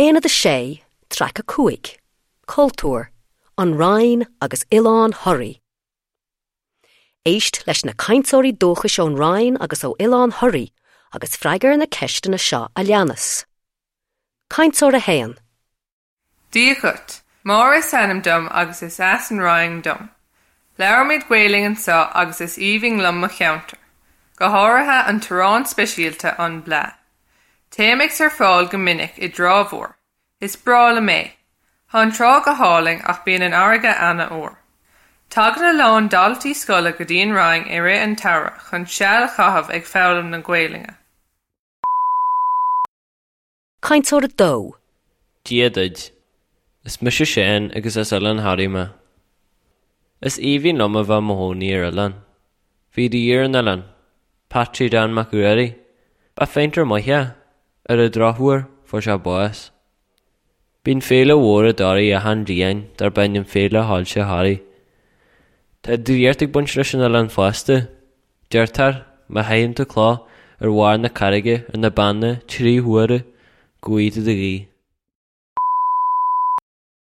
Aonad 6, Traic 5, Cultúr, An Rinn agus Oileán Thoraí. Éist leis na cainteoirí dúchais ón Rinn agus ó Oileán Thoraí agus freagair na ceisteanna seo a leanas. Cainteoir 1. Dia dhuit. Máire is ainm dom agus is as an Rinn dom. Labhraímid Gaelainn anseo agus is aoibhinn liom mo cheantar. Go háirithe an t-arán speisialta, an blea. Téim ag surfáil go minic i dTrá Mhór. Is breá liom é. Tá an trá go hálainn ach bíonn an fharraige an-fhuar. Tagann a lán daltaí scoile go dtí an Rinn i rith an tsamhraidh chun seal a chaitheamh ag foghlaim na Gaelainne. Cainteoir 2. Dia duit. Is mise Seán agus as Oileán Thoraí mé. Is aoibhinn liom a bheith i mo chónaí ar oileán. Bhí rí ar an oileán, Patsy Dan Mac Ruairí. Ba phéintéir maith é. Ar an drochuair, fuair sé bás. Bíonn féile mhór i dToraigh achan bhliain darb ainm Féile Shoilse Thoraí. Tá draíocht ag baint leis an oileán fosta. Deirtear, má chaitheann tú cloch ar bharr na carraige ar na Beanna trí huaire, go bhfaighidh tú do ghuí.